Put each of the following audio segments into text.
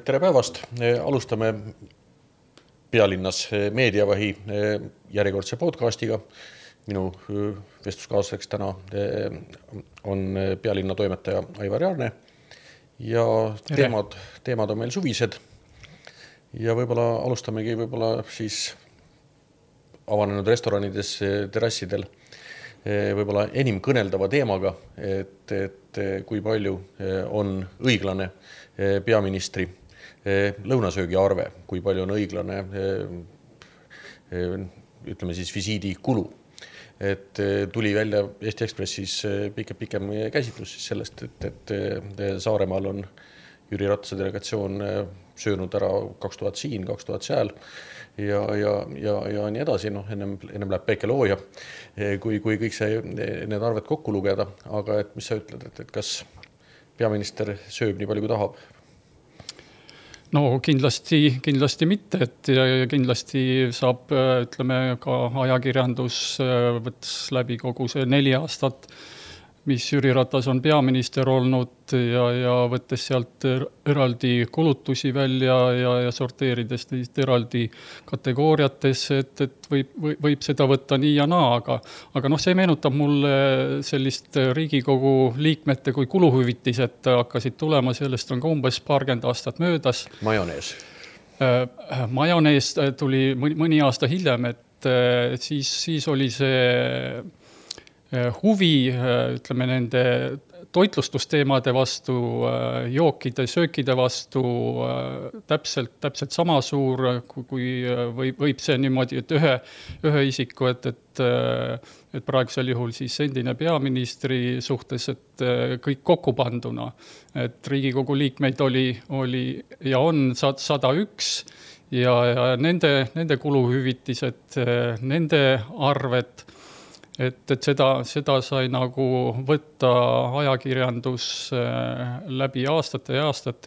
Tere päevast! Alustame Pealinnas meediavahi järjekordse podcastiga. Minu vestluskaaslaseks täna on Pealinna toimetaja Aivar Jaarne ja teemad on meil suvised. Ja võib-olla alustamegi siis avanenud restoranides, terrassidel võib-olla enim kõneldava teemaga, et kui palju on õiglane peaministri lõunasöögi arve, kui palju on õiglane ütleme siis visiidi kulu. Et tuli välja Eesti Ekspressis pikem käsitlus siis sellest, et Saaremaal on Jüri Ratase delegatsioon söönud ära 2000 siin, 2000 seal ja nii edasi. Ennem läheb päikelooja, kui kõik need arved kokku lugeda. Aga et mis sa ütled, et kas peaminister sööb nii palju kui tahab? No kindlasti mitte, et kindlasti saab, ütleme, ka ajakirjandus võttes läbi kogu see 4 aastat, mis Jüri Ratas on peaminister olnud ja võttes sealt eraldi kulutusi välja ja sorteerides neid eraldi kategooriatesse, et võib seda võtta nii ja naa, aga see meenutab mulle sellist Riigikogu liikmete kui kuluhüvitised hakkasid tulema, sellest on ka umbes 20 aastat möödas. Majonees tuli mõni aasta hiljem, et siis oli see huvi, ütleme, nende toitlustusteemade vastu, jookide, söökide vastu täpselt sama suur, kui võib see niimoodi, et ühe isiku, et praegusel juhul siis endine peaministri suhtes, et kõik kokku panduna. Et Riigikogu liikmeid oli ja on 101 ja nende kuluhüvitised, nende arved, et seda sai nagu võtta ajakirjandus läbi aastate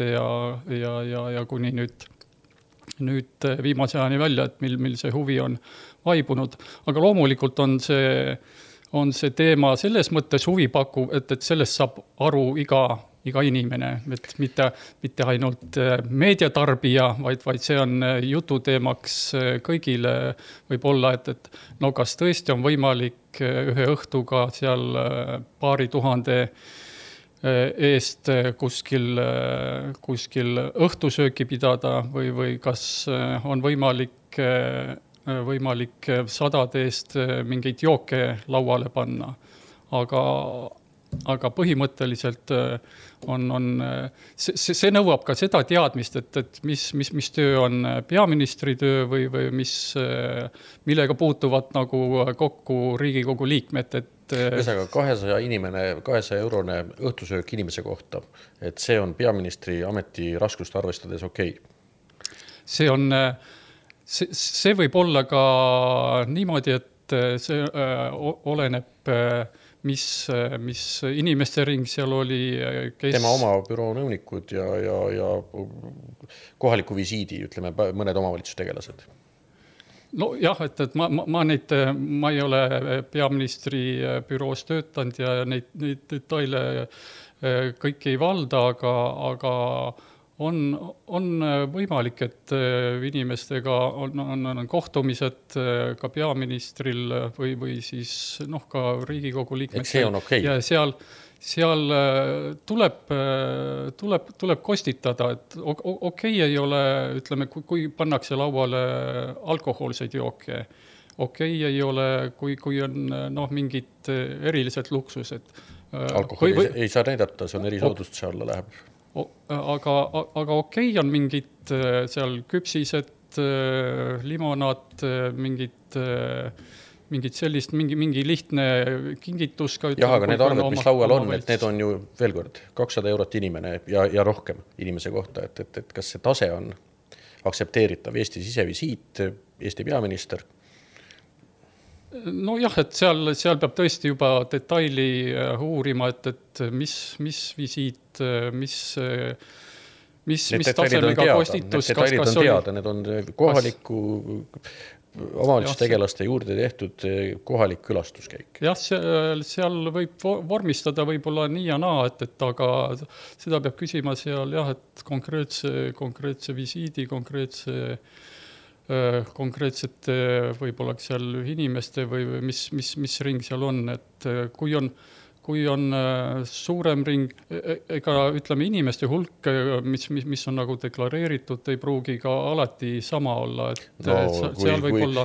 ja kuni nüüd viimase ajani välja, et mil see huvi on vaibunud. Aga loomulikult on see teema selles mõttes huvipakkuv, et sellest saab aru iga inimene, et mitte ainult meediatarbija, vaid see on jututeemaks kõigile võib-olla, et no kas tõesti on võimalik ühe õhtuga seal paari tuhande eest kuskil õhtusööki pidada või kas on võimalik sadade eest mingeid jooke lauale panna. Aga põhimõtteliselt see nõuab ka seda teadmist, et mis töö on peaministri töö või millega puutuvad nagu kokku Riigikogu liikmed. Ühesõnaga 200 eurone õhtusöök inimese kohta, et see on peaministri ameti raskust arvestades okei. See võib olla ka niimoodi, et see oleneb mis inimeste ring seal oli, tema oma büroo nõunikud ja kohaliku visiidi, ütleme, mõned omavalitsustegelased. No jah, et ma ei ole peaministri büroos töötanud ja neid detaile kõik ei valda, aga on võimalik, et inimestega on kohtumised ka peaministril või siis ka Riigikogu liikmetel. Et see on okei. Ja seal tuleb kostitada, et okei ei ole, ütleme, kui pannakse lauale alkohoolseid jooke. Okei ei ole, kui on mingid erilised luksused. Alkoholi ei saa näidata, see on erisoodustuse alla läheb. Aga okei on mingid seal küpsised, limonaad, mingid sellist, mingi lihtne kingitus. Jah, aga need arved, mis laual on, et need on ju veel kord 200 eurot inimene ja rohkem inimese kohta, et kas see tase on aktsepteeritav Eesti sisevisiit, Eesti peaminister? No jah, et seal peab tõesti juba detaili uurima, et mis visiit, mis tasemega kostitus. Need detailid on teada, need on omavalitsustegelaste juurde tehtud kohalik külastuskäik. Jah, seal võib vormistada võib-olla nii ja naa, et aga seda peab küsima seal jah, et konkreetse visiidi, konkreetsete võib-olla seal inimeste või mis ring seal on, et kui on suurem ring, ega ütleme inimeste hulk, mis on nagu deklareeritud, ei pruugi ka alati sama olla, et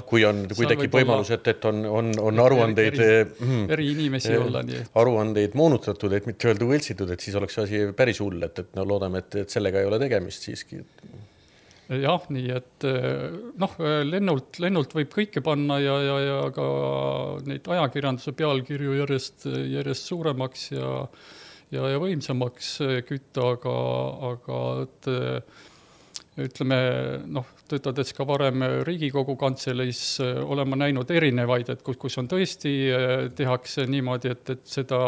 kui tekib võimalus, et on aruandeid eri inimesi olla, nii aruandeid moonutatud, et mitte öelda võltsitud, et siis oleks asi päris hull, et loodame, et sellega ei ole tegemist siiski. Jah, nii et lennult võib kõike panna ja ka neid ajakirjanduse pealkirju järjest suuremaks ja võimsamaks kütta, aga ütleme, töötades ka varem Riigikogu kantseleis olen ma näinud erinevaid, et kus on tõesti tehakse niimoodi, et seda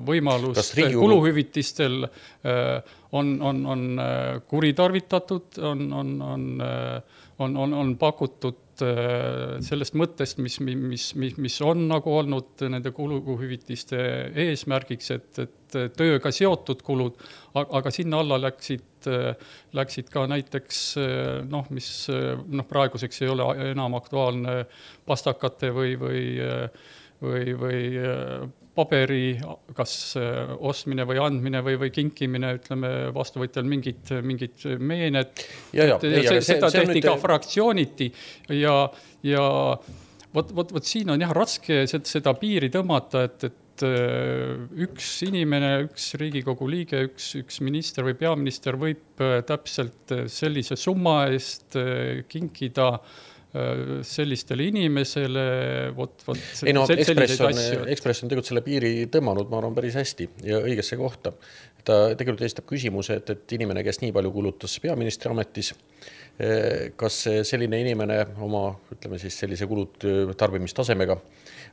võimalust kuluhüvitistel on kuritarvitatud, on pakutud sellest mõttest, mis on nagu olnud nende kuluhüvitiste eesmärgiks, et tööga seotud kulud, aga sinna alla läksid ka näiteks, mis praeguseks ei ole enam aktuaalne pastakate või paberi kas ostmine või andmine või kinkimine, ütleme vastuvõtjal mingid meened. Seda tehti ka fraktsiooniti ja vot siin on jah raske seda piiri tõmmata, et üks inimene, üks Riigikogu liige, üks minister või peaminister võib täpselt sellise summa eest kinkida sellistele inimesele, Ekspress on tegelikult selle piiri tõmmanud, ma arvan, päris hästi ja õigesse kohta. Ta tegelikult esitab küsimuse, et inimene, kes nii palju kulutas peaministri ametis, kas selline inimene oma, ütleme siis sellise kulut tarbimistasemega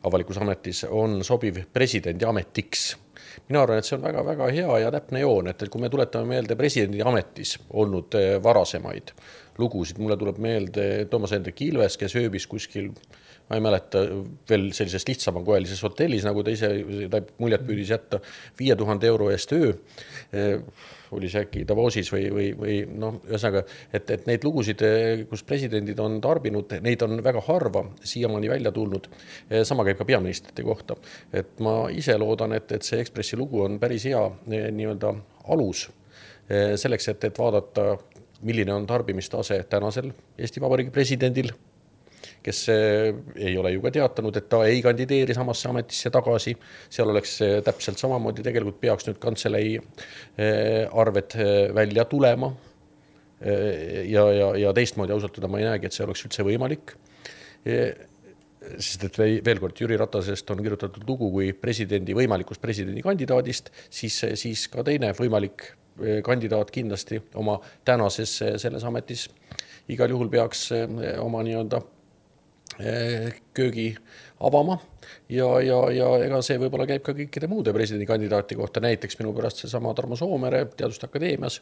avalikus ametis on sobiv presidendi ametiks. Mina arvan, et see on väga-väga hea ja täpne joon, et kui me tuletame meelde presidendi ametis olnud varasemaid lugusid, mulle tuleb meelde Toomas Hendrik Ilves, kes ööbis kuskil, ma ei mäleta, veel sellises lihtsamakoelises hotellis, nagu ta ise muljet püüdis jätta 5,000 € eest öö, oli see äkki Davosis või ühesõnaga, et neid lugusid, kus presidendid on tarbinud, neid on väga harva siiamaani välja tulnud. Sama käib ka peaministrite kohta. Et ma ise loodan, et see Ekspressi lugu on päris hea nii-öelda alus selleks, et vaadata, milline on tarbimistase tänasel Eesti Vabariigi presidendil, kes ei ole ju ka teatanud, et ta ei kandideeri samasse ametisse tagasi. Seal oleks täpselt samamoodi, tegelikult peaks nüüd kantselei arved välja tulema ja teistmoodi ausalt ma ei näegi, et see oleks üldse võimalik. Sest et veel kord, Jüri Ratasest on kirjutatud lugu kui võimalikust presidendi kandidaadist, siis ka teine võimalik kandidaat kindlasti oma tänases selles ametis igal juhul peaks oma nii-öelda köögi avama ja ega see võib-olla käib ka kõikide muude presidendikandidaati kohta, näiteks minu pärast seesama Tarmo Soomere Teaduste Akadeemias,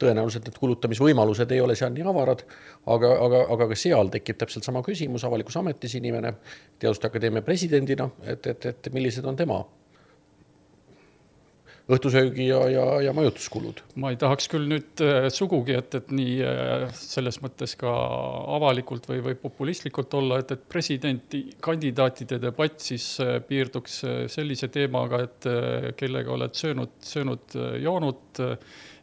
tõenäoliselt need kulutamisvõimalused ei ole seal nii avarad, aga ka seal tekib täpselt sama küsimus, avalikus ametis inimene Teaduste Akadeemia presidendina, et millised on tema õhtusöögi ja majutuskulud. Ma ei tahaks küll nüüd sugugi, et nii selles mõttes ka avalikult või populistlikult olla, et presidenti kandidaatide debatt siis piirduks sellise teemaga, et kellega oled söönud joonud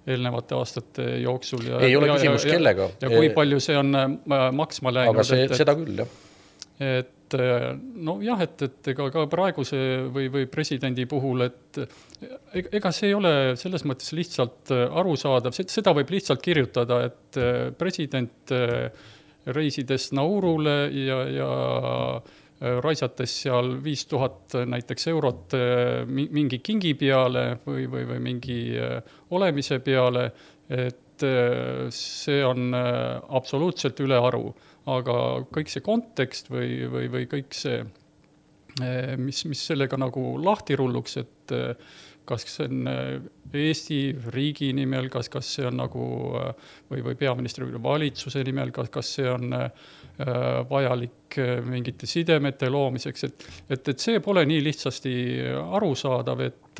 eelnevate aastate jooksul. Ei ole küsimus kellega. Ja kui palju see on maksma läinud. Aga seda küll, jah. Et ka praeguse või presidendi puhul, et ega see ei ole selles mõttes lihtsalt arusaadav, seda võib lihtsalt kirjutada, et president reisides Naurule ja raisates seal 5,000 näiteks eurot mingi kingi peale või mingi olemise peale, et see on absoluutselt üle aru. Aga kõik see kontekst või kõik see mis sellega nagu lahti rulluks, et kas see on Eesti riigi nimel, kas see on nagu või peaministri valitsuse nimel, kas see on vajalik mingite sidemete loomiseks, et see pole nii lihtsasti arusaadav, et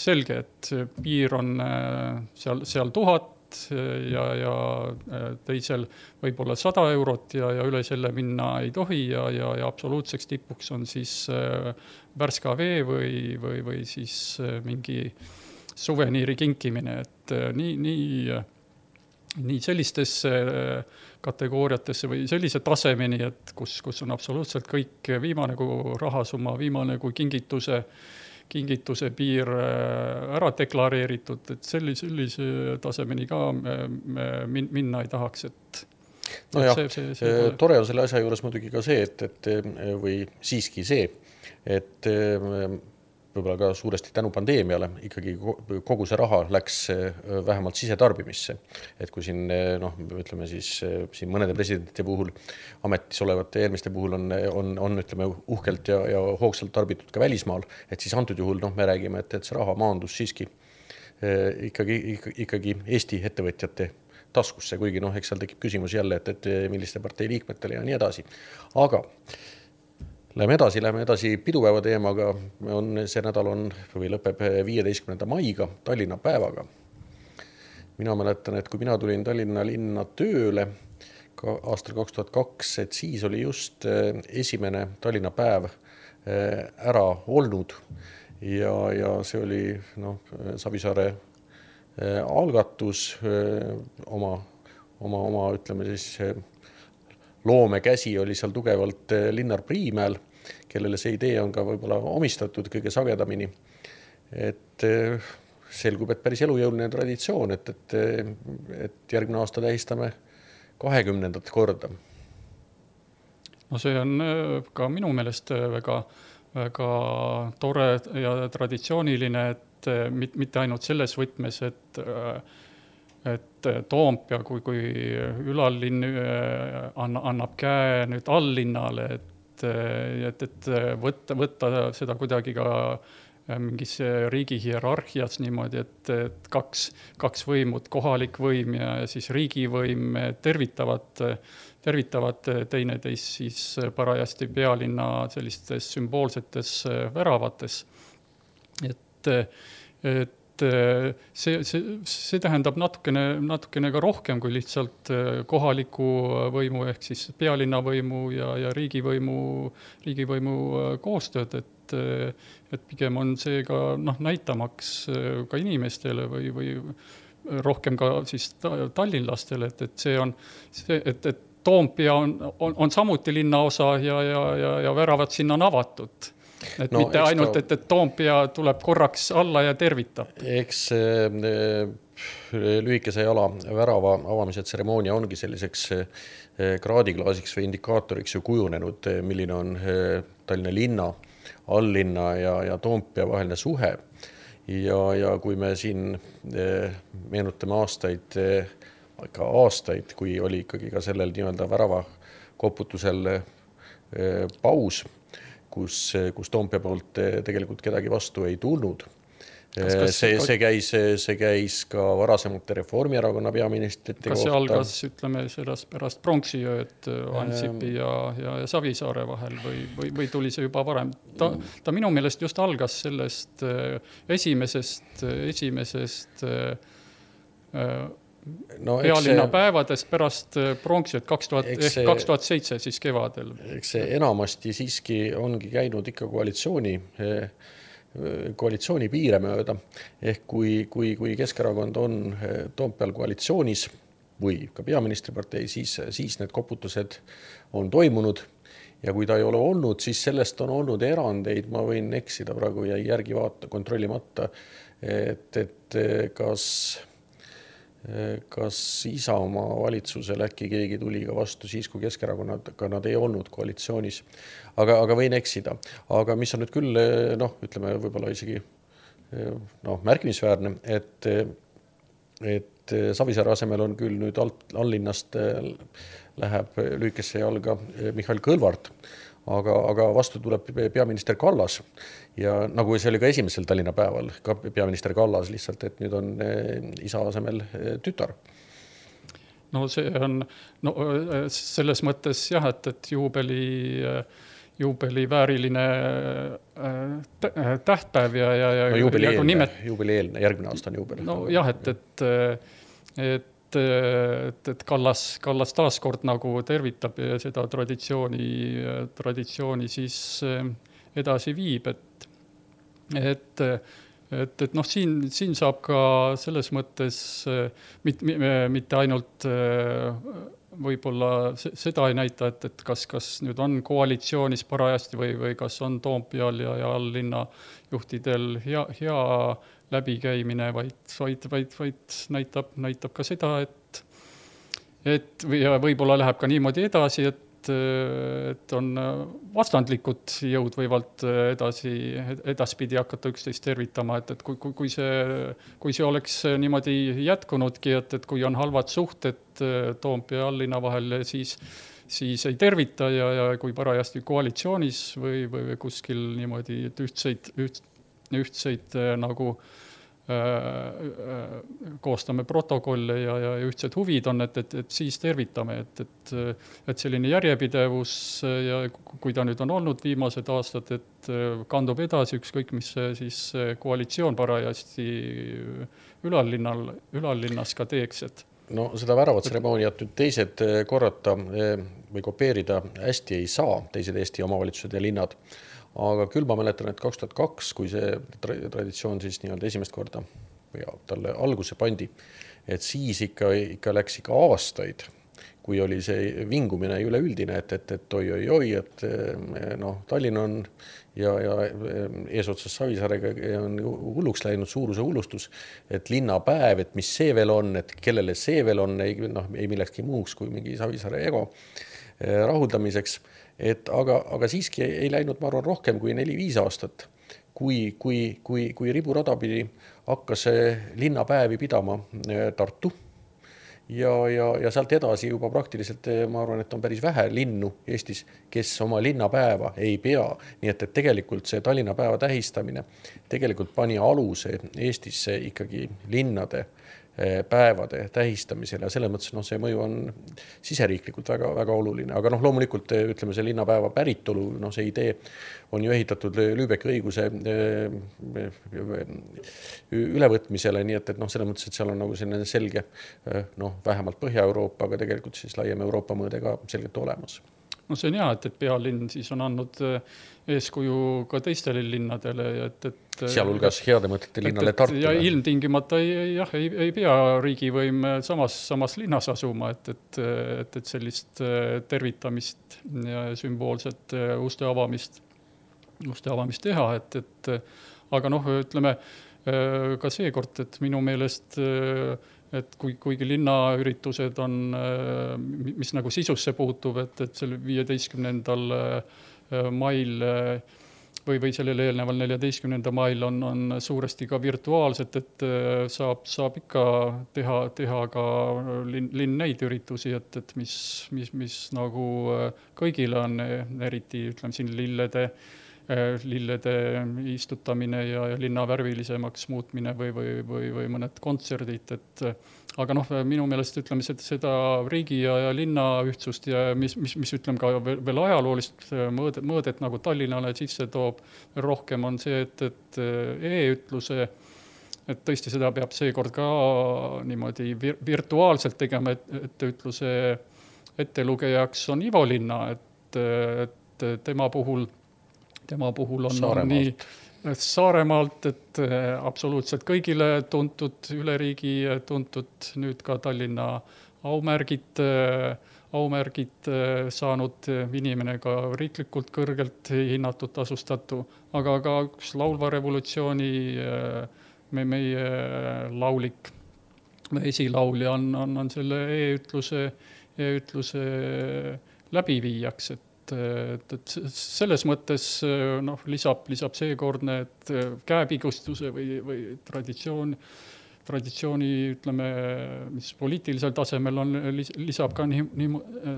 selge, et piir on seal 1000 ja teisel võib-olla 100 eurot ja üle selle minna ei tohi ja absoluutseks tipuks on siis värska vee või siis mingi suveniiri kinkimine, et nii sellistesse kategooriatesse või sellise tasemeni, et kus on absoluutselt kõik viimane kui rahasumma, viimane kui kingituse piir ära deklareeritud, et sellise tasemeni ka minna ei tahaks, et no jah, tore on selle asja juures muidugi ka see, et või siiski see, et võib-olla ka suuresti tänu pandeemiale ikkagi kogu see raha läks vähemalt sisetarbimisse. Et kui siin, ütleme siis siin mõnede presidentide puhul, ametis olevate eelmiste puhul on ütleme uhkelt ja hoogsalt tarbitud ka välismaal, et siis antud juhul me räägime, et see raha maandus siiski ikkagi Eesti ettevõtjate taskusse, kuigi eks seal tekib küsimus jälle, et milliste partei liikmetele ja nii edasi. Aga Läheme edasi pidupäeva teemaga. See nädal lõpeb 15. maiga Tallinna päevaga. Mina mäletan, et kui mina tulin Tallinna linna tööle aastal 2002, et siis oli just esimene Tallinna päev ära olnud ja see oli Savisaare algatus oma ütleme siis loomekäsi oli seal tugevalt Linnar Priimäel, kellele see idee on ka võib-olla omistatud kõige sagedamini. Et selgub, et päris elujõuline traditsioon, et järgmine aasta tähistame 20. korda. No see on ka minu meelest väga tore ja traditsiooniline, et mitte ainult selles võtmes, et Toompea kui ülallinn annab käe nüüd alllinnale, et võtta seda kuidagi ka mingis riigi hierarhias niimoodi, et kaks võimud, kohalik võim ja siis riigivõim tervitavad teineteist siis parajasti pealinna sellistes sümboolsetes väravates. Et see tähendab natukene ka rohkem kui lihtsalt kohaliku võimu ehk siis pealinna võimu ja riigivõimu koostööd, et pigem on see ka näitamaks ka inimestele või rohkem ka siis tallinlastele, et see on see, et Toompea on samuti linnaosa ja väravad sinna on avatud. Et mitte ainult, et Toompea tuleb korraks alla ja tervitab. Eks lühikese jala värava avamise tseremoonia ongi selliseks kraadiklaasiks või indikaatoriks ju kujunenud, milline on Tallinna linna, alllinna ja Toompea vaheline suhe. Ja kui me siin meenutame aastaid, kui oli ikkagi ka sellel nii-öelda värava koputusel paus, kus Toompea poolt tegelikult kedagi vastu ei tulnud. See käis ka varasemate Reformierakonna peaministrite kohta. Kas see algas, ütleme, sellest pärast pronksiööd Ansipi ja Savisaare vahel või tuli see juba varem? Ta minu meelest just algas sellest esimesest pealinna päevadest pärast pronksiööd 2007 siis kevadel. Eks see enamasti siiski ongi käinud ikka koalitsiooni piire mööda. Ehk kui Keskerakond on Toompeal koalitsioonis või ka peaministripartei, siis need koputused on toimunud. Ja kui ta ei ole olnud, siis sellest on olnud erandeid. Ma võin eksida praegu ja järgi kontrollimata, et kas Isamaa valitsusel äkki keegi tuli ka vastu siis, kui Keskerakonnad nad ei olnud koalitsioonis. Aga võin eksida. Aga mis on nüüd küll, ütleme võib-olla isegi märkimisväärne, et Savisaare asemel on küll nüüd allinnast läheb lühikesse jalga Mihhail Kõlvart, aga vastu tuleb peaminister Kallas ja nagu see oli ka esimesel Tallinna päeval, ka peaminister Kallas lihtsalt, et nüüd on isa asemel tütar. No see on selles mõttes jah, et juubeli vääriline tähtpäev ja juubelieelne, järgmine aasta on juubel. No jah, et Kallas taaskord nagu tervitab ja seda traditsiooni siis edasi viib, et siin saab ka selles mõttes mitte ainult võib-olla seda ei näita, et kas nüüd on koalitsioonis parajasti või kas on Toompeal ja alllinna juhtidel hea läbikäimine, vaid näitab ka seda, et võib-olla läheb ka niimoodi edasi, et on vastandlikud jõud võivad edaspidi hakata üksteist tervitama, et kui see oleks niimoodi jätkunudki, et kui on halvad suhted Toompea ja alllinna vahel, siis ei tervita ja kui parajasti koalitsioonis või kuskil niimoodi, et ühtseid nagu koostame protokolle ja ühtsed huvid on, et siis tervitame, et selline järjepidevus ja kui ta nüüd on olnud viimased aastad, et kandub edasi ükskõik, mis siis koalitsioon parajasti ülallinnas ka teeks, et no seda väravatseremooniat nüüd teised korrata või kopeerida hästi ei saa, teised Eesti omavalitsused ja linnad. Aga küll ma mäletan, et 2002, kui see traditsioon siis nii-öelda esimest korda või talle alguse pandi, et siis ikka läks aastaid, kui oli see vingumine üleüldine, et oi, et Tallinn on ja eesotsas Savisaarega on hulluks läinud suuruse hullustus, et linnapäev, et mis see veel on, et kellele see veel on, ei millekski muuks kui mingi Savisaare ego rahuldamiseks. Aga siiski ei läinud, ma arvan, rohkem kui 4-5 aastat, kui riburada pidi hakkas linnapäevi pidama Tartu ja sealt edasi juba praktiliselt, ma arvan, et on päris vähe linnu Eestis, kes oma linnapäeva ei pea. Nii et tegelikult see Tallinna päeva tähistamine tegelikult pani aluse Eestisse ikkagi linnade päevade tähistamisel ja selles mõttes see mõju on siseriiklikult väga, väga oluline. Aga loomulikult ütleme see linnapäeva päritolu, see idee on ju ehitatud Lübecki õiguse ülevõtmisele, nii et selles mõttes, et seal on nagu selline selge, vähemalt Põhja-Euroopa, aga tegelikult siis laiem Euroopa mõõde ka selgelt olemas. No see on hea, et pealinn siis on andnud eeskuju ka teistele linnadele. Sealhulgas heade mõtete linnale Tartule. Ja ilmtingimata ei pea riigivõim samas linnas asuma, et sellist tervitamist ja sümboolset uste avamist teha. Aga ütleme ka seekord, et minu meelest et kuigi linnaüritused on, mis nagu sisusse puutub, et selle 15. mail või sellele eelneval 14. mail on suuresti ka virtuaalselt, et saab ikka teha ka linn neid üritusi, et mis nagu kõigile on eriti, ütleme siin lillede istutamine ja linna värvilisemaks muutmine või mõned kontserdid, aga minu meelest ütleme seda riigi ja linna ühtsust ja mis ütleme ka veel ajaloolist mõõdet nagu Tallinnale sisse toob rohkem on see, et e-ütluse, et tõesti seda peab seekord ka niimoodi virtuaalselt tegema, et ütluse ettelugejaks on Ivo Linna, et tema puhul on nii Saaremaalt, et absoluutselt kõigile tuntud, üle riigi tuntud, nüüd ka Tallinna aumärgid saanud inimene, ka riiklikult kõrgelt hinnatud tasustatu, aga ka üks laulva revolutsiooni meie laulik esilaulja on selle e-ütluse läbiviijaks, et selles mõttes lisab seekordne, et käepigustuse või traditsiooni, ütleme, mis poliitilisel tasemel on, lisab ka nii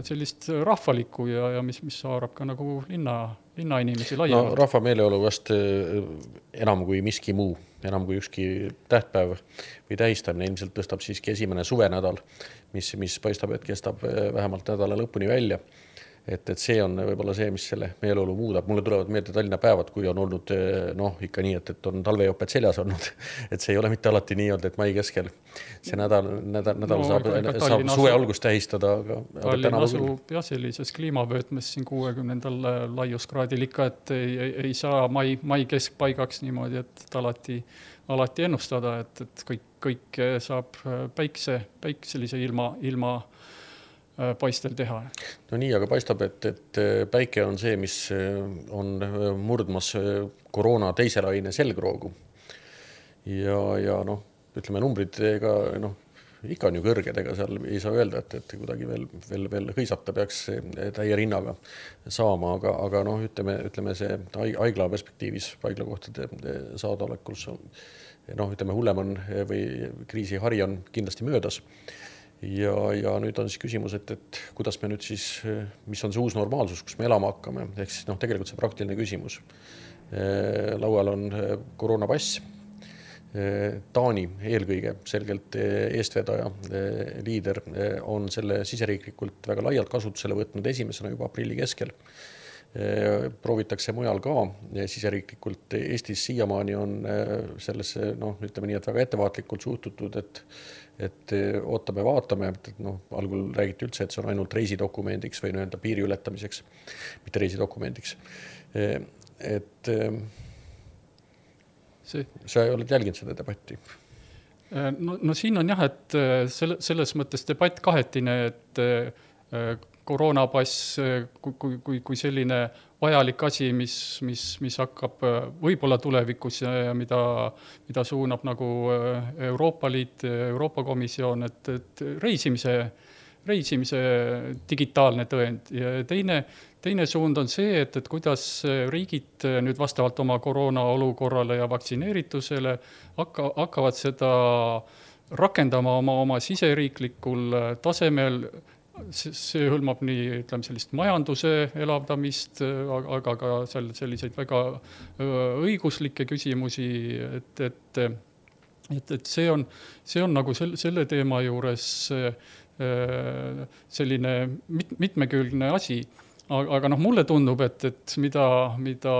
sellist rahvalikku ja mis haarab ka nagu linna inimesi laiemalt. No rahva meeleolu vast enam kui miski muu, enam kui ükski tähtpäev või tähistamine ilmselt tõstab siiski esimene suvenädal, mis paistab, et kestab vähemalt nädala lõpuni välja. Et see on võib-olla see, mis selle meeleolu muudab. Mulle tulevad meelde Tallinna päevad, kui on olnud ikka nii, et on talvejoped seljas olnud. Et see ei ole mitte alati nii olnud, et mai keskel see nädal saab suve algust tähistada. Tallinn asub sellises kliimavöötmes siin 60. laiuskraadil ikka, et ei saa mai keskpaigaks niimoodi, et alati ennustada, et kõik saab päikselise ilma paistel teha. No nii, aga paistab, et päike on see, mis on murdmas koroona teise laine selgroogu. Ja ütleme, numbrid ikka on ju kõrged, ega seal ei saa öelda, et kuidagi veel hõisata peaks täie rinnaga saama, aga ütleme see haigla perspektiivis, haiglakohtade saadaolekus ütleme, hullem on või kriisihari on kindlasti möödas. Ja nüüd on siis küsimus, et kuidas me nüüd siis, mis on see uus normaalsus, kus me elama hakkame, ehk siis tegelikult see praktiline küsimus. Laual on koroonapass. Taani eelkõige selgelt eestvedaja, liider on selle siseriiklikult väga laialt kasutusele võtnud esimesena juba aprilli keskel. Proovitakse mujal ka siseriiklikult. Eestis siiamaani on sellesse, ütleme nii, et väga ettevaatlikult suhtutud, et ootame, vaatame, algul räägiti üldse, et see on ainult reisidokumendiks või piiri ületamiseks, mitte reisidokumendiks. Sa ei oled jälginud seda debatti? No siin on jah, et selles mõttes debatt kahetine, et koroonapass kui selline vajalik asi, mis hakkab võib-olla tulevikus ja mida suunab nagu Euroopa Liit, Euroopa Komisjon, et reisimise digitaalne tõend. Ja teine suund on see, et kuidas riigid nüüd vastavalt oma koroona olukorrale ja vaktsineeritusele hakkavad seda rakendama oma siseriiklikul tasemel. See hõlmab nii, ütleme, sellist majanduse elavdamist, aga ka selliseid väga õiguslikke küsimusi, et see on nagu selle teema juures selline mitmekülgne asi. Aga mulle tundub, et mida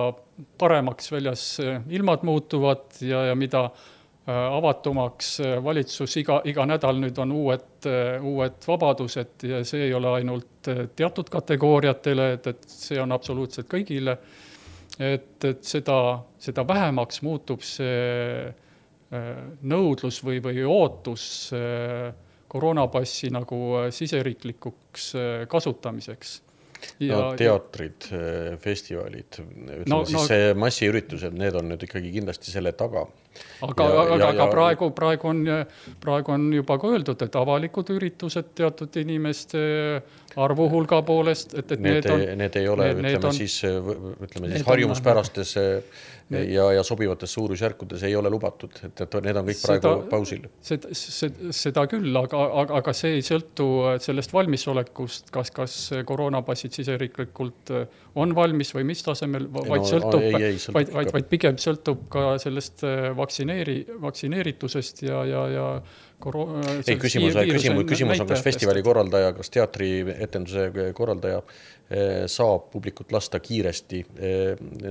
paremaks väljas ilmad muutuvad ja mida avatumaks valitsus iga nädal nüüd on uued vabadused ja see ei ole ainult teatud kategooriatele, et see on absoluutselt kõigile, et seda vähemaks muutub see nõudlus või ootus koroonapassi nagu siseriiklikuks kasutamiseks. Teatrid, festivalid, ütleme see massiüritused, need on nüüd ikkagi kindlasti selle taga. Aga praegu on juba ka öeldud, et avalikud üritused teatud inimeste arvu hulga poolest, et need ei ole, ütleme siis harjumuspärastes ja sobivates suurusjärkudes ei ole lubatud, et need on kõik praegu pausil. Seda küll, aga see ei sõltu sellest valmisolekust, kas koroonapassid siseriiklikult on valmis või mis tasemel, vaid pigem sõltub ka sellest vaktsineeritusest ja küsimus on, kas festivali korraldaja, kas teatri etenduse korraldaja saab publikut lasta kiiresti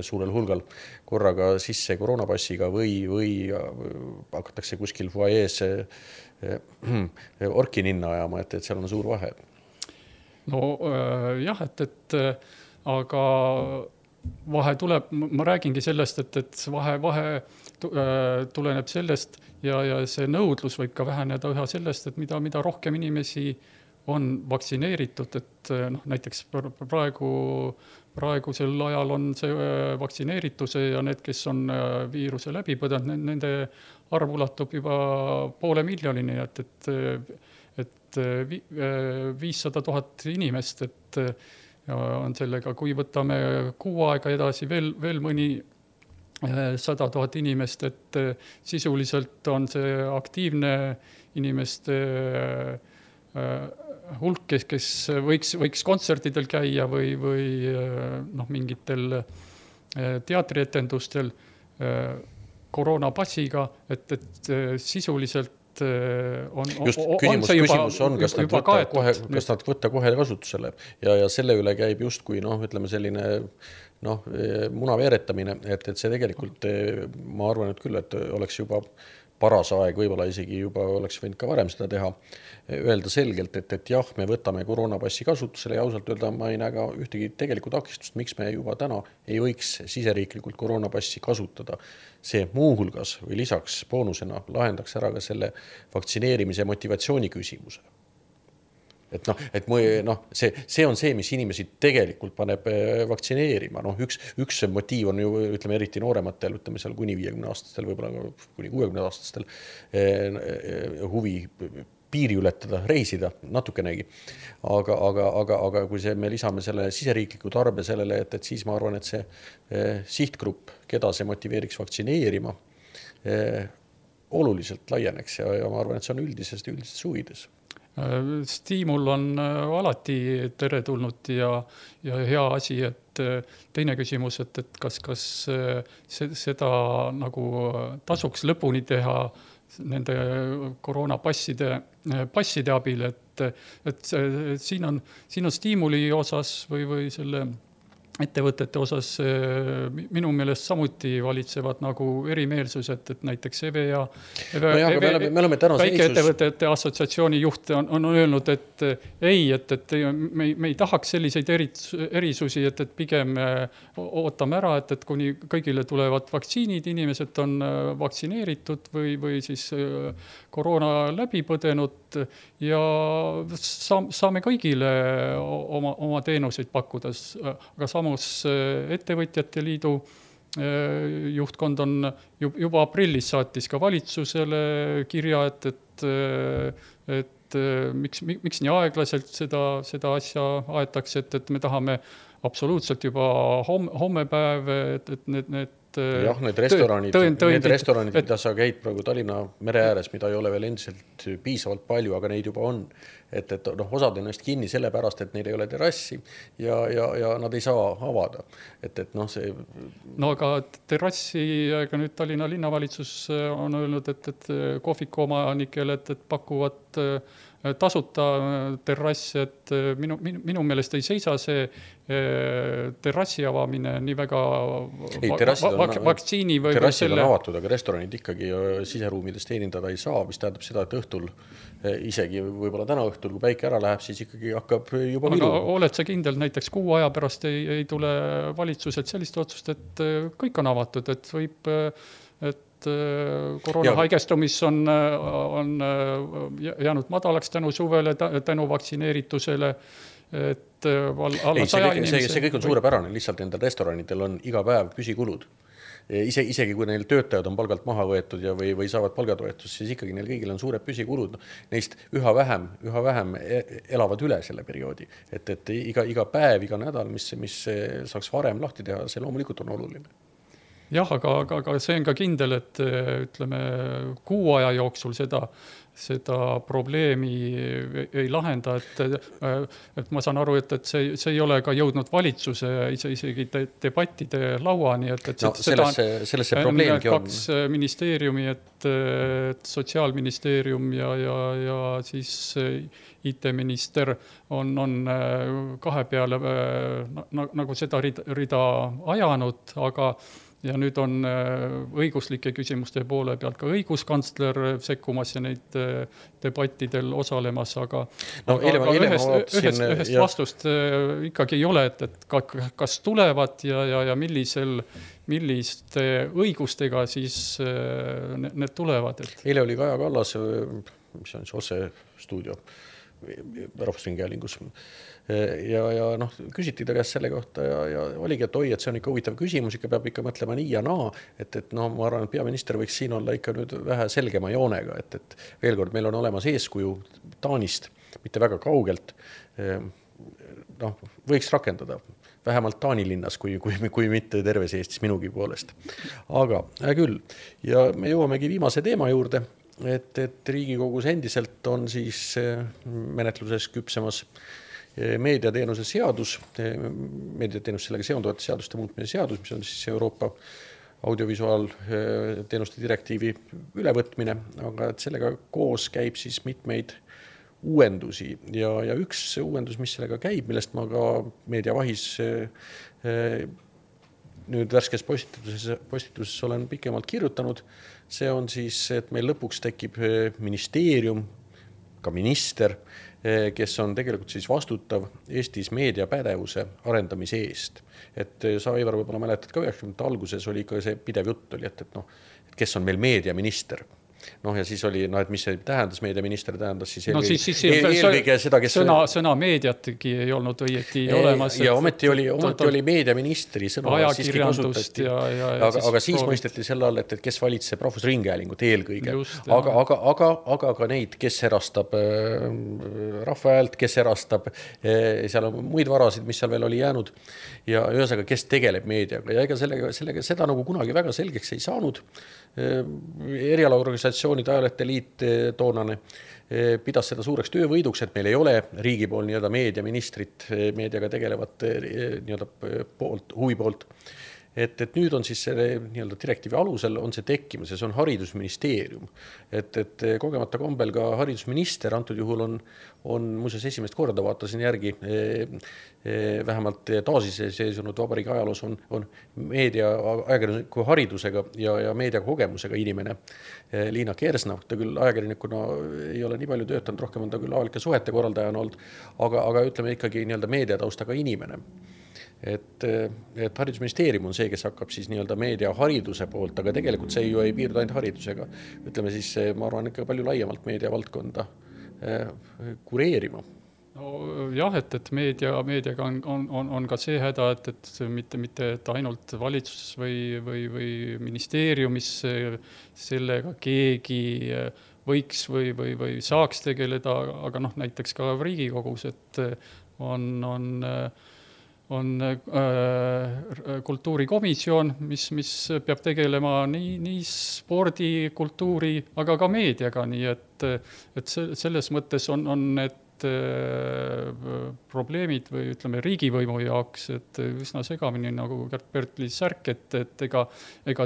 suurel hulgal korraga sisse koroonapassiga või hakatakse kuskil fuajees orki ninna ajama, et seal on suur vahe. No jah, et aga vahe tuleb, ma räägingi sellest, et vahe tuleneb sellest ja see nõudlus võib ka väheneda üha sellest, et mida rohkem inimesi on vaktsineeritud, et näiteks praegusel ajal on see vaktsineerituse ja need, kes on viiruse läbi põdenud, nende arv ulatub juba 500 miljonini, et 500 000 inimest, et on sellega, kui võtame 6 aega edasi veel mõni 100 000 inimest, et sisuliselt on see aktiivne inimeste hulk, kes võiks kontsertidel käia või mingitel teatrietendustel koroonapasiga, et sisuliselt küsimus on, kas nad võtta kohe kasutusele ja selle üle käib justkui ütleme selline muna veeretamine, et see tegelikult ma arvan, et küll, et oleks juba paras aeg, võib-olla isegi juba oleks võinud ka varem seda teha, öelda selgelt, et jah, me võtame koroonapassi kasutusele ja ausalt öelda ma ei näe ka ühtegi tegelikult takistust, miks me juba täna ei võiks siseriiklikult koroonapassi kasutada. See muuhulgas või lisaks boonusena lahendaks ära ka selle vaktsineerimise motivatsiooni küsimuse. See on see, mis inimesi tegelikult paneb vaktsineerima. Üks motiiv on ju, ütleme, eriti noorematel, ütleme seal kuni 50-aastastel, võib-olla kuni 60-aastastel huvi piiri ületada, reisida natukenegi. Aga kui me lisame selle siseriikliku tarbe sellele, et siis ma arvan, et see sihtgrupp, keda see motiveeriks vaktsineerima, oluliselt laieneks ja ma arvan, et see on üldisest huvides. Stiimul on alati teretulnud ja hea asi, et teine küsimus, et kas seda nagu tasuks lõpuni teha nende koroonapasside abil, et siin on stiimuli osas või selle ettevõtete osas minu meelest samuti valitsevad nagu erimeelsused, et näiteks EVEA väikeettevõtete assotsiatsiooni juht on öelnud, et me ei tahaks selliseid erisusi, et pigem ootame ära, et kuni kõigile tulevad vaktsiinid, inimesed on vaktsineeritud või siis koroona läbi põdenud ja saame kõigile oma teenuseid pakkuda, aga samus ettevõtjate liidu juhtkond on juba aprillis saatis ka valitsusele kirja, et miks nii aeglaselt seda asja aetakse, et me tahame absoluutselt juba hommepäev, et need need restoranid, mida sa käid praegu Tallinna mere ääres, mida ei ole veel endiselt piisavalt palju, aga neid juba on. Et osad on neist kinni sellepärast, et neil ei ole terrassi ja nad ei saa avada. See... No aga terrassi, aga nüüd Tallinna linnavalitsus on öelnud, et kohviku omanikele, et pakuvad tasuta terrass, et minu meelest ei seisa see terrassi avamine nii väga vaktsiini või terrassid on avatud, aga restoranid ikkagi siseruumides teenindada ei saa, mis tähendab seda, et õhtul isegi võib-olla täna õhtul, kui päike ära läheb, siis ikkagi hakkab juba aga oled sa kindel, näiteks 6 aja pärast ei tule valitsuselt sellist otsust, et kõik on avatud, et võib koroona haigestumis on jäänud madalaks tänu suvele, tänu vaktsineeritusele, et alla 100 inimese... See kõik on suurepärane, lihtsalt nendel restoranidel on iga päev püsikulud. Isegi kui neil töötajad on palgalt maha võetud või saavad palgatoetust, siis ikkagi neil kõigil on suured püsikulud. Neist üha vähem elavad üle selle perioodi. Et iga päev, iga nädal, mis saaks varem lahti teha, see loomulikult on oluline. Jah, aga see on ka kindel, et ütleme 6 aja jooksul seda probleemi ei lahenda, et ma saan aru, et see ei ole ka jõudnud valitsuse isegi debattide lauani, et sellesse probleemgi on 2 ministeeriumi, et Sotsiaalministeerium ja siis IT-minister on 2 peale nagu seda rida ajanud, aga ja nüüd on õiguslike küsimuste poole pealt ka õiguskantsler sekkumas ja neid debattidel osalemas, aga ühest vastust ikkagi ei ole, et kas tulevad ja milliste õigustega siis need tulevad. Eile oli Kaja Kallas, mis on see otsestuudio Rahvusringhäälingus ja küsiti ta käest selle kohta ja oligi, et et see on ikka huvitav küsimus, ikka peab ikka mõtlema nii ja naa, et ma arvan, et peaminister võiks siin olla ikka nüüd vähe selgema joonega, et veel kord, meil on olemas eeskuju Taanist, mitte väga kaugelt, võiks rakendada vähemalt Taani linnas, kui mitte terves Eestis minugi poolest. Aga küll, ja me jõuamegi viimase teema juurde, et Riigikogus endiselt on siis menetluses küpsemas meediateenuse seadus, meediateenus sellega seonduvate seaduste muutmise seadus, mis on siis Euroopa audiovisuaalteenuste direktiivi ülevõtmine, aga et sellega koos käib siis mitmeid uuendusi ja üks uuendus, mis sellega käib, millest ma ka meediavahis nüüd värskes postituses olen pikemalt kirjutanud, see on siis, et meil lõpuks tekib ministeerium, ka minister, kes on tegelikult siis vastutav Eestis meediapädevuse arendamise eest. Et sa, Ivar, võib-olla mäletad ka 90. alguses oli ikka see pidev jutt oli, et kes on meil meediaminister. Ja siis oli, et mis see tähendas, meediaminister tähendas siis eelkõige seda, kes... Sõna meediatki ei olnud õieti olemas. Ja ometi oli meediaministri sõna siiski kasutati. Aga siis mõisteti selle all, et kes valitseb rahvusringhäälingut eelkõige. Aga ka neid, kes erastab rahva häält, kes erastab, seal on muid varasid, mis seal veel oli jäänud. Ja ühesõnaga, kes tegeleb meediaga. Ja ega sellega seda nagu kunagi väga selgeks ei saanud. Erialaorganisatsioonide ajalehte liit toonane pidas seda suureks töövõiduks, et meil ei ole riigi pool meediaministrit meediaga tegelevat huvi poolt. Et nüüd on siis selle direktiivi alusel on see tekkimas ja see on haridusministeerium. Et kogemata kombel ka haridusminister antud juhul on muuseas esimest korda vaatasin järgi, vähemalt taasiseseisvunud vabariigi ajaloos on meedia ajakirjaniku haridusega ja meediakogemusega inimene Liina Kersna. Ta küll ajakirjanikuna ei ole nii palju töötanud, rohkem on ta küll avalike suhete korraldajana olnud, aga ütleme ikkagi meediataustaga inimene. Et haridusministeerium on see, kes hakkab siis meediahariduse poolt, aga tegelikult see ju ei piirdu ainult haridusega. Ütleme siis, ma arvan, ikka palju laiemalt meediavaldkonda kureerima. No, jah, et meediaga on ka see häda, et mitte ainult valitsus või ministeeriumis sellega keegi võiks või saaks tegeleda, aga näiteks ka Riigikogus, et on kultuurikomisjon, mis peab tegelema nii spordi, kultuuri, aga ka meediaga, nii et selles mõttes on need probleemid või ütleme riigivõimu jaoks, et üsna segamini nagu Gert-Bertli särk, et ega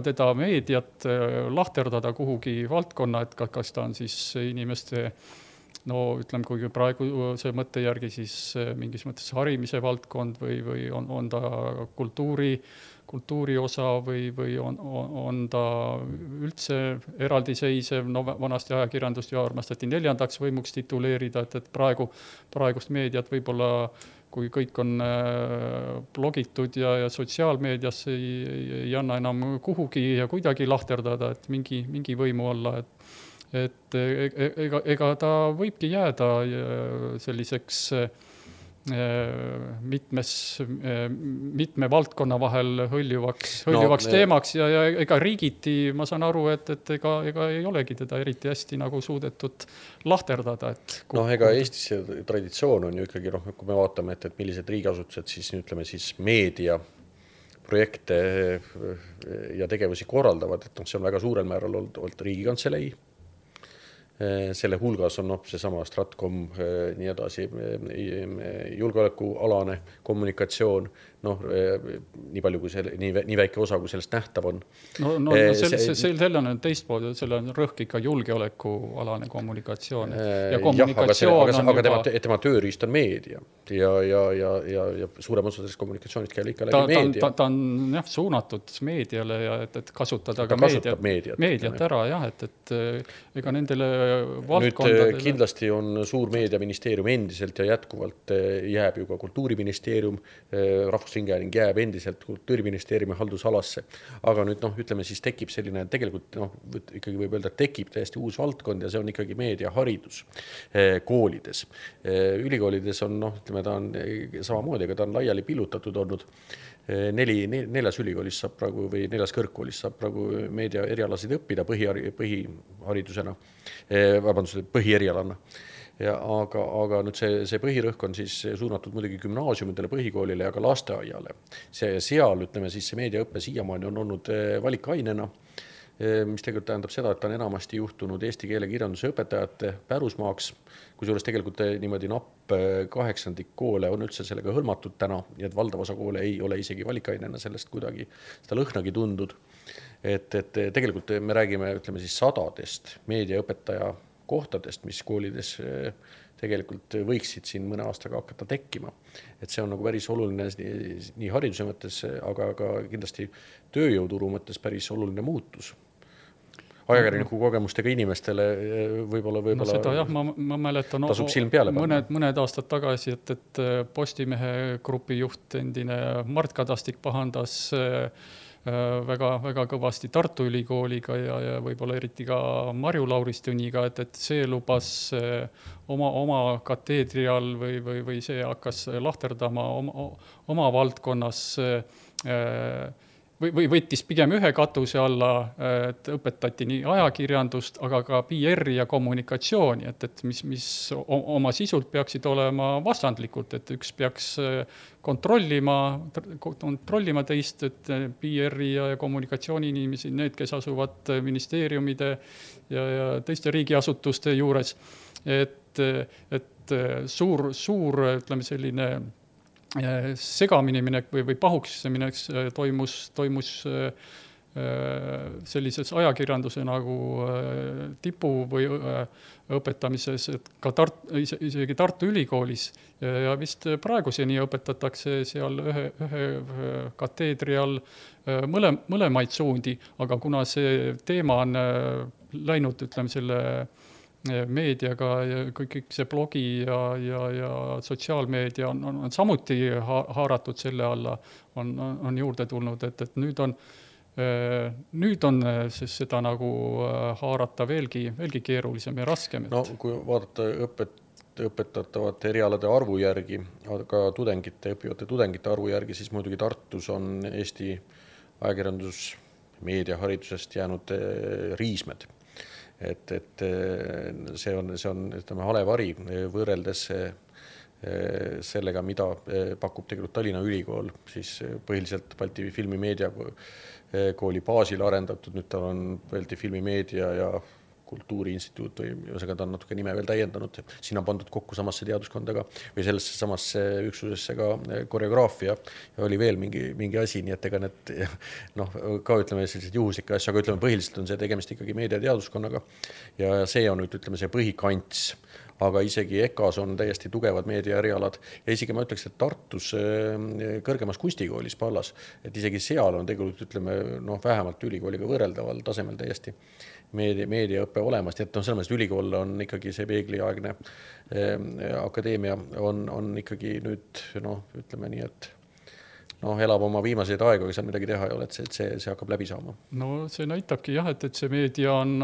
teda meediat lahterdada kuhugi valdkonna, et kas ta on siis inimeste ütleme, kui praegu see mõtte järgi siis mingis mõttes harimise valdkond või on ta kultuuri osa või on ta üldse eraldiseisev, vanasti ajakirjandust ju armastati 4. võimuks tituleerida, et praegust meediat võib-olla, kui kõik on blogitud ja sotsiaalmeedias ei anna enam kuhugi ja kuidagi lahterdada, et mingi võimu olla, et ega ta võibki jääda selliseks mitme valdkonna vahel hõljuvaks teemaks ja ega riigiti, ma saan aru, et ega ei olegi teda eriti hästi nagu suudetud lahterdada. Ega Eestis traditsioon on ju ikkagi, kui me vaatame, et millised riigiasutused siis, ütleme siis meedia projekte ja tegevusi korraldavad, et see on väga suurel määral olnud Riigikantselei. Selle hulgas on seesama Stratcom, nii edasi, julgeolekualane kommunikatsioon, nii palju kui nii väike osa, kui sellest nähtav on. Selle on teistpool, selle on rõhk ikka julgeolekualane kommunikatsioon. Ja kommunikatsioon aga tema tööriist on meedia ja suurem osa sellest kommunikatsioonist käib ikka läbi meedia. Ta on suunatud meediale ja et kasutada ka meediat ära, jah, et ega nendele valdkondadele... Nüüd kindlasti on suur meediaministeerium endiselt ja jätkuvalt jääb ju ka kultuuriministeerium, rahvusringhääling jääb endiselt kultuuriministeeriumi haldusalasse. Aga nüüd ütleme siis tekib selline, tegelikult ikkagi võib öelda, et tekib täiesti uus valdkond ja see on ikkagi meediaharidus koolides. Ülikoolides on, ütleme, ta on samamoodi, aga ta on laiali pillutatud olnud. 4 ülikoolis saab praegu või 4 kõrgkoolis saab praegu meedia erialasid õppida põhiharidusena, põhieerialana. aga nüüd see põhirõhk on siis suunatud muidugi gümnaasiumidele, põhikoolile ja ka lasteaiale. Seal, ütleme siis see meediaõppe siiamaani on olnud valikainena, mis tegelikult tähendab seda, et ta on enamasti juhtunud eesti keele kirjanduse õpetajate pärusmaaks, kusjuures tegelikult niimoodi napp 8% koole on üldse sellega hõlmatud täna, nii et valdav osa koole ei ole isegi valikainena sellest kuidagi seda lõhnagi tundud. Et tegelikult me räägime, ütleme siis sadadest meediaõpetaja kohtadest, mis koolides tegelikult võiksid siin mõne aastaga hakata tekkima. Et see on nagu päris oluline nii hariduse mõttes, aga ka kindlasti tööjõuturu mõttes päris oluline muutus. Ajakirjaniku kogemustega inimestele võib-olla no seda jah, ma mäletan tasub silm peale mõned aastad tagasi, et Postimehe grupi juht endine Mart Kadastik pahandas väga kõvasti Tartu Ülikooliga ja võib-olla eriti ka Marju Lauristuniga, et see lubas oma kateedri all või see hakkas lahterdama oma valdkonnas või võttis pigem ühe katuse alla, et õpetati nii ajakirjandust, aga ka PR-i ja kommunikatsiooni, et mis oma sisult peaksid olema vastandlikult, et üks peaks kontrollima teist, et PR-i ja kommunikatsiooni inimesi, need, kes asuvad ministeeriumide ja teiste riigiasutuste juures, et suur, ütleme selline segamini minek või pahuks minek toimus sellises ajakirjanduse nagu tipu või õpetamises, et ka isegi Tartu Ülikoolis ja vist praeguseni õpetatakse seal ühe kateedri all mõlemaid suundi, aga kuna see teema on läinud, ütleme selle meediaga ja kõik see blogi ja sotsiaalmeedia on samuti haaratud selle alla, on juurde tulnud, et nüüd on seda nagu haarata veelgi keerulisem ja raskem. No kui vaadata õpetatavate erialade arvu järgi, aga õppivate tudengite arvu järgi, siis muidugi Tartus on Eesti ajakirjandus meediaharidusest jäänud riismed. Et see on ütleme, halevari võrreldes sellega, mida pakub tegelikult Tallinna Ülikool, siis põhiliselt Balti filmimeedia kooli baasil arendatud, nüüd tal on Balti filmimeedia ja Kultuuriinstituut või ühesõnaga ta on natuke nime veel täiendanud. Siin on pandud kokku samasse teaduskondaga või sellesse samasse üksusesse ka koreograafia ja oli veel mingi asi, nii et ega need ka ütleme sellised juhuslikke asju, aga ütleme põhiliselt on see tegemist ikkagi meediateaduskonnaga ja see on nüüd ütleme see põhikants, aga isegi EKAs on täiesti tugevad meediaerialad ja isegi ma ütleks, et Tartus kõrgemas kunstikoolis Pallas, et isegi seal on tegelikult ütleme vähemalt ülikooliga võrreldaval tasemel täiesti meediaõppe olemas, nii et selles mõttes ülikool on ikkagi see peegliaegne akadeemia on ikkagi nüüd ütleme nii, et elab oma viimaseid aegu, aga seal midagi teha ei ole, et see hakkab läbi saama. No see näitabki jah, et see meedia on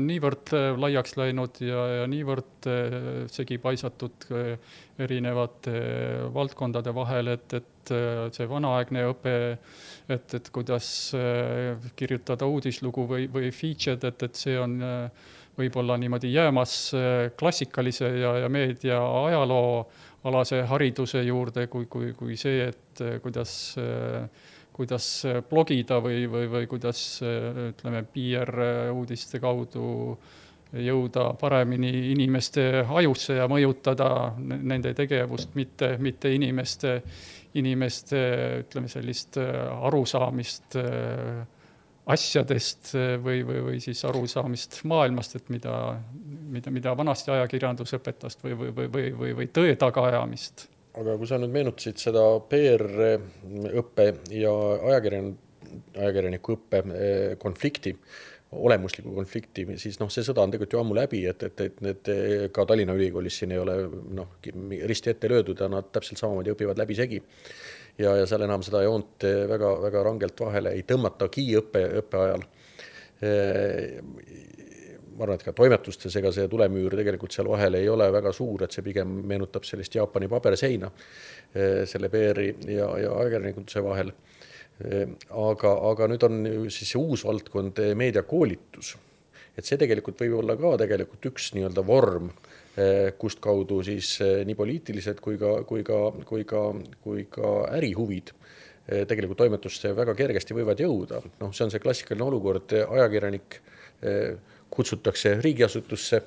niivõrd laiaks läinud ja niivõrd segi paisatud erinevate valdkondade vahel, et see vanaaegne õpe, et kuidas kirjutada uudislugu või featured, et see on võib-olla niimoodi jäämas klassikalise ja meedia ajaloo alase hariduse juurde kui see, et kuidas blogida või kuidas ütleme PR-uudiste kaudu jõuda paremini inimeste ajusse ja mõjutada nende tegevust, mitte inimeste ütleme sellist arusaamist asjadest või siis arusaamist maailmast, et mida vanasti ajakirjandus õpetas või tõe tagaajamist. Aga kui sa nüüd meenutasid seda PR-õppe ja ajakirjaniku õppe konflikti, olemusliku konflikti, siis see sõda on tegelikult ju ammu läbi, et need ka Tallinna Ülikoolis siin ei ole risti ette löödud ja nad täpselt samamoodi õpivad läbi segi. Ja seal enam seda joont väga, väga rangelt vahele ei tõmmatagi õppe ajal. Ma arvan, et ka toimetustes ega see tulemüür tegelikult seal vahel ei ole väga suur, et see pigem meenutab sellist Jaapani paberseina selle PR-i ja ajakirjanikutuse vahel. Aga nüüd on siis see uus valdkond meediakoolitus. Et see tegelikult võib olla ka tegelikult üks nii-öelda vorm kust kaudu siis nii poliitilised kui ka ärihuvid tegelikult toimetusse väga kergesti võivad jõuda. Noh, see on see klassikaline olukord, ajakirjanik kutsutakse riigiasutusse,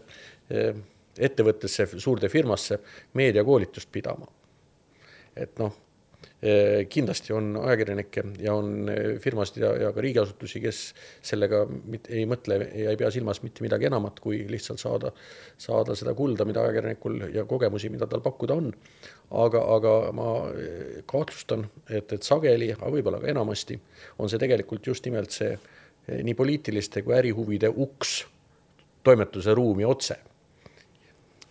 ettevõttesse, suurde firmasse meediakoolitust pidama. Et noh, kindlasti on ajakirjanikke ja on firmasid ja ka riigiasutusi, kes sellega ei mõtle ja ei pea silmas mitte midagi enamat, kui lihtsalt saada seda kulda, mida ajakirjanikul ja kogemusi, mida tal pakkuda on. Aga ma kahtlustan, et sageli, aga võib-olla ka enamasti, on see tegelikult just nimelt see nii poliitiliste kui ärihuvide uks toimetuse ruumi otse.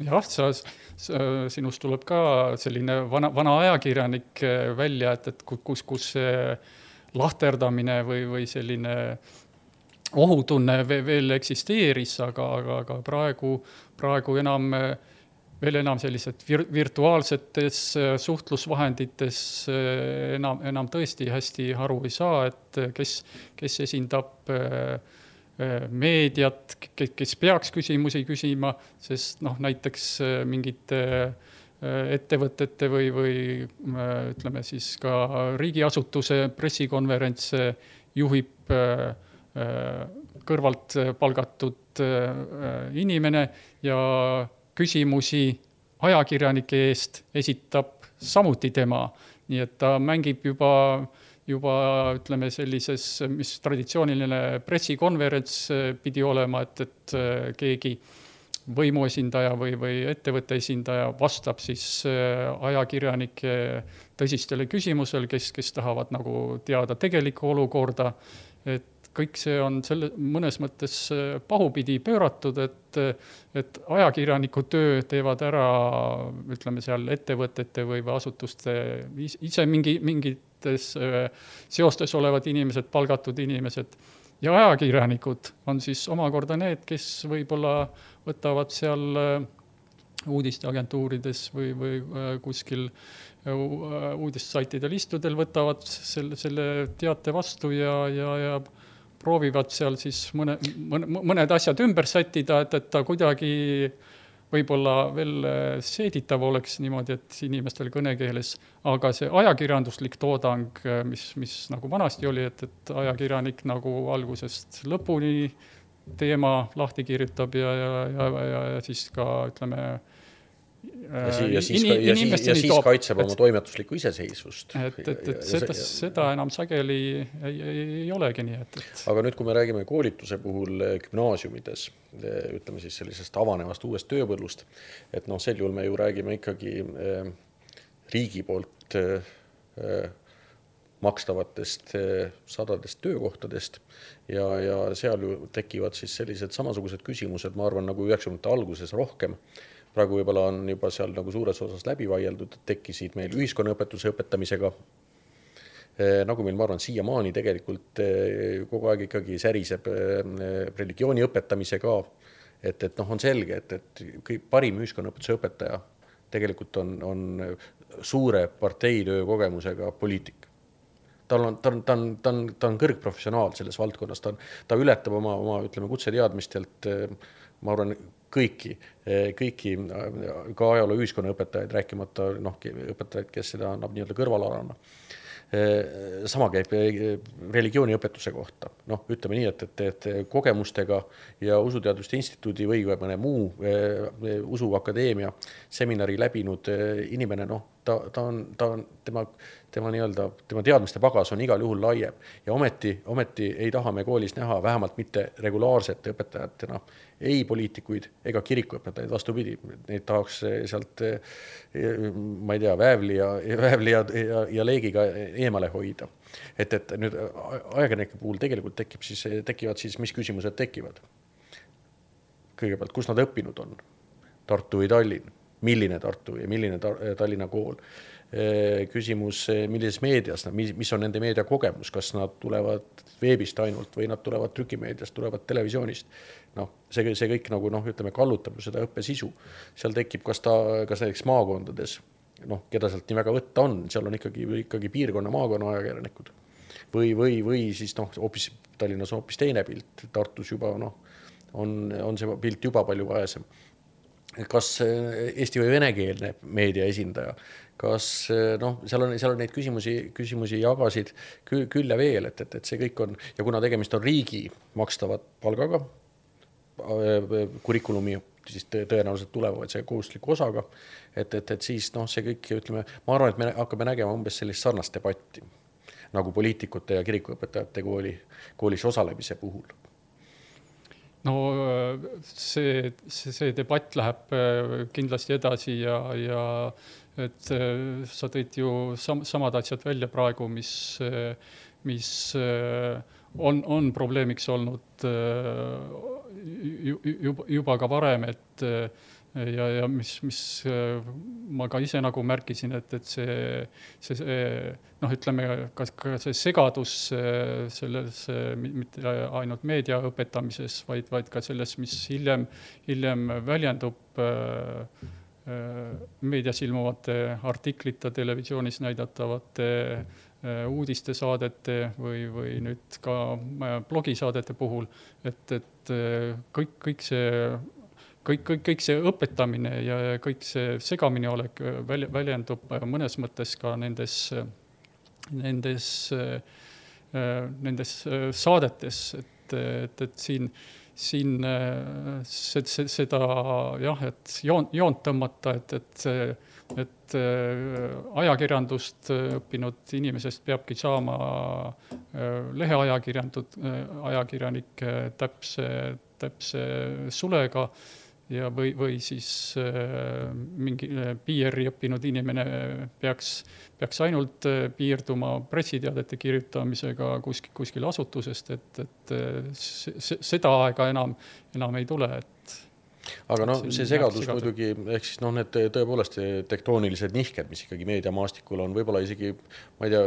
Jah, sinust tuleb ka selline vana ajakirjanik välja, et kus lahterdamine või selline ohutunne veel eksisteeris, aga praegu veel enam sellised virtuaalsetes suhtlusvahendites enam tõesti hästi aru ei saa, et kes esindab meediat, kes peaks küsimusi küsima, sest näiteks mingite ettevõtete või ütleme siis ka riigiasutuse pressikonverentse juhib kõrvalt palgatud inimene ja küsimusi ajakirjanike eest esitab samuti tema. Nii et ta mängib juba ütleme sellises, mis traditsiooniline pressikonverents pidi olema, et keegi võimuesindaja või ettevõtte esindaja vastab siis ajakirjanike tõsistele küsimusel, kes tahavad nagu teada tegelikku olukorda, et kõik see on mõnes mõttes pahupidi pööratud, et ajakirjaniku töö teevad ära, ütleme seal ettevõtete või asutuste ise mingites seostes olevad inimesed, palgatud inimesed. Ja ajakirjanikud on siis omakorda need, kes võib-olla võtavad seal uudisteagentuurides või kuskil uudissaitidel istudel võtavad selle teate vastu ja proovivad seal siis mõned asjad ümber sättida, et ta kuidagi võib-olla veel seeditav oleks niimoodi, et inimestel kõnekeeles, aga see ajakirjanduslik toodang, mis nagu vanasti oli, et ajakirjanik nagu algusest lõpuni teema lahti kirjutab ja siis ka, ütleme, ja siis kaitseb oma toimetuslikku iseseisvust. Seda enam sageli ei olegi nii. Aga nüüd, kui me räägime koolituse puhul gümnaasiumides, ütleme siis sellisest avanevast uuest tööpõllust, et sel juhul me ju räägime ikkagi riigi poolt makstavatest sadadest töökohtadest ja seal ju tekivad siis sellised samasugused küsimused, ma arvan, nagu 90. alguses rohkem. Praegu võib-olla on juba seal nagu suures osas läbi vaieldud, et tekkisid meil ühiskonnaõpetuse õpetamisega. Nagu meil, ma arvan, siiamaani tegelikult kogu aeg ikkagi säriseb religiooni õpetamise ka. Et on selge, et parim ühiskonnaõpetuse õpetaja tegelikult on suure parteitöö kogemusega poliitik. Ta on kõrgprofessionaal selles valdkonnas, ta ületab oma ütleme, kutseteadmistelt, ma arvan, kõiki ka ajaloo ühiskonnaõpetajaid, rääkimata õpetajaid, kes seda annab nii-öelda kõrvalarana. Sama käib religiooniõpetuse kohta. Ütleme nii, et kogemustega ja Usuteaduste Instituudi või mõne muu usuakadeemia seminari läbinud inimene, tema teadmiste pagas on igal juhul laiem ja ometi ei taha me koolis näha vähemalt mitte regulaarsete õpetajatena ei poliitikuid ega kirikuõpetajaid, vastupidi, neid tahaks sealt, ma ei tea, väävli ja leegiga eemale hoida. Et nüüd ajakirjanike puhul tegelikult tekivad siis, mis küsimused tekivad? Kõigepealt, kus nad õppinud on? Tartu või Tallinn? Milline Tartu ja milline Tallinna kool? Küsimus, millises meedias, mis on nende meedia kogemus, kas nad tulevad veebist ainult või nad tulevad trükimeediast, tulevad televisioonist. See kõik nagu, ütleme, kallutab seda õppesisu. Seal tekib, kas näiteks maakondades, keda sealt nii väga võtta on, seal on ikkagi piirkonna maakonna ajakirjanikud. Või siis hoopis Tallinnas on hoopis teine pilt, Tartus juba on see pilt juba palju vaesem. kas eesti või venekeelne meedia esindaja, kas seal on neid küsimusi jagasid küll ja veel, et see kõik on, ja kuna tegemist on riigi makstava palgaga, kurikulumi siis tõenäoliselt tulevad see kohustusliku osaga, et siis see kõik, ütleme, ma arvan, et me hakkame nägema umbes sellist sarnast debatti, nagu poliitikute ja kirikuõpetajate koolis osalemise puhul. No see debatt läheb kindlasti edasi ja et sa tõid ju samad asjad välja praegu, mis on probleemiks olnud juba ka varem, et ja mis ma ka ise nagu märkisin, et see ütleme, ka see segadus selles, mitte ainult meedia õpetamises, vaid ka selles, mis hiljem väljendub meedias ilmuvate artiklite, televisioonis näidatavate uudistesaadete või nüüd ka blogisaadete puhul, et kõik see õpetamine ja kõik see segamine olek väljendub mõnes mõttes ka nendes saadetes, et siin seda jah, et joont tõmmata, et ajakirjandust õppinud inimesest peabki saama ajakirjanik täpse sulega ja või siis mingi PR-i õppinud inimene peaks ainult piirduma pressiteadete kirjutamisega kuskil asutusest, et seda aega enam ei tule, aga see segadus muidugi, ehk siis need tõepoolest tektoonilised nihked, mis ikkagi meediamaastikul on, võib-olla isegi, ma ei tea,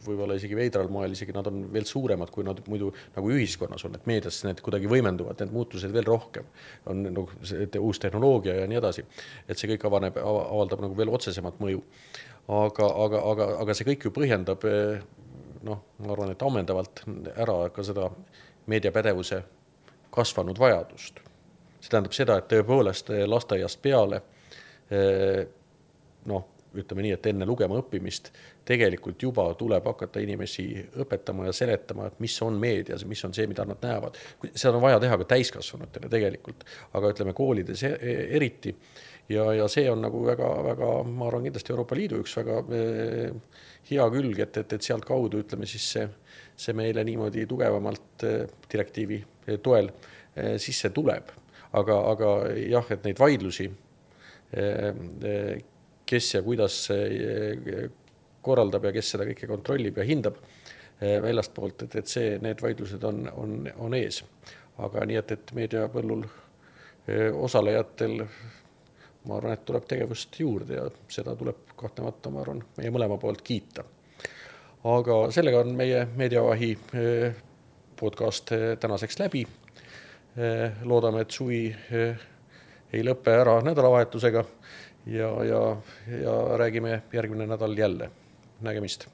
võib-olla isegi veidral moel, isegi nad on veel suuremad, kui nad muidu nagu ühiskonnas on, et meedias need kuidagi võimenduvad, need muutused veel rohkem, on uus tehnoloogia ja nii edasi, et see kõik avaldab nagu veel otsesemat mõju. Aga see kõik ju põhjendab, ma arvan, et ammendavalt ära ka seda meediapädevuse kasvanud vajadust. See tähendab seda, et tõepoolest lasteaiast peale, ütleme nii, et enne lugema õppimist tegelikult juba tuleb hakata inimesi õpetama ja seletama, et mis on meedias, mis on see, mida nad näevad. Seda on vaja teha ka täiskasvanutele tegelikult, aga ütleme koolides eriti. Ja see on nagu väga, ma arvan kindlasti Euroopa Liidu üks väga hea külg, et sealt kaudu, ütleme siis see meile niimoodi tugevamalt direktiivi toel sisse tuleb. Aga jah, et neid vaidlusi, kes ja kuidas korraldab ja kes seda kõike kontrollib ja hindab väljast poolt, et need vaidlused on ees. Aga nii, et meediapõllul osalejatel, ma arvan, et tuleb tegevust juurde ja seda tuleb kahtlemata, ma arvan, meie mõlema poolt kiita. Aga sellega on meie Meediavahi podcast tänaseks läbi. Loodame, et suvi ei lõppe ära nädalavahetusega ja räägime järgmine nädal jälle. Nägemist.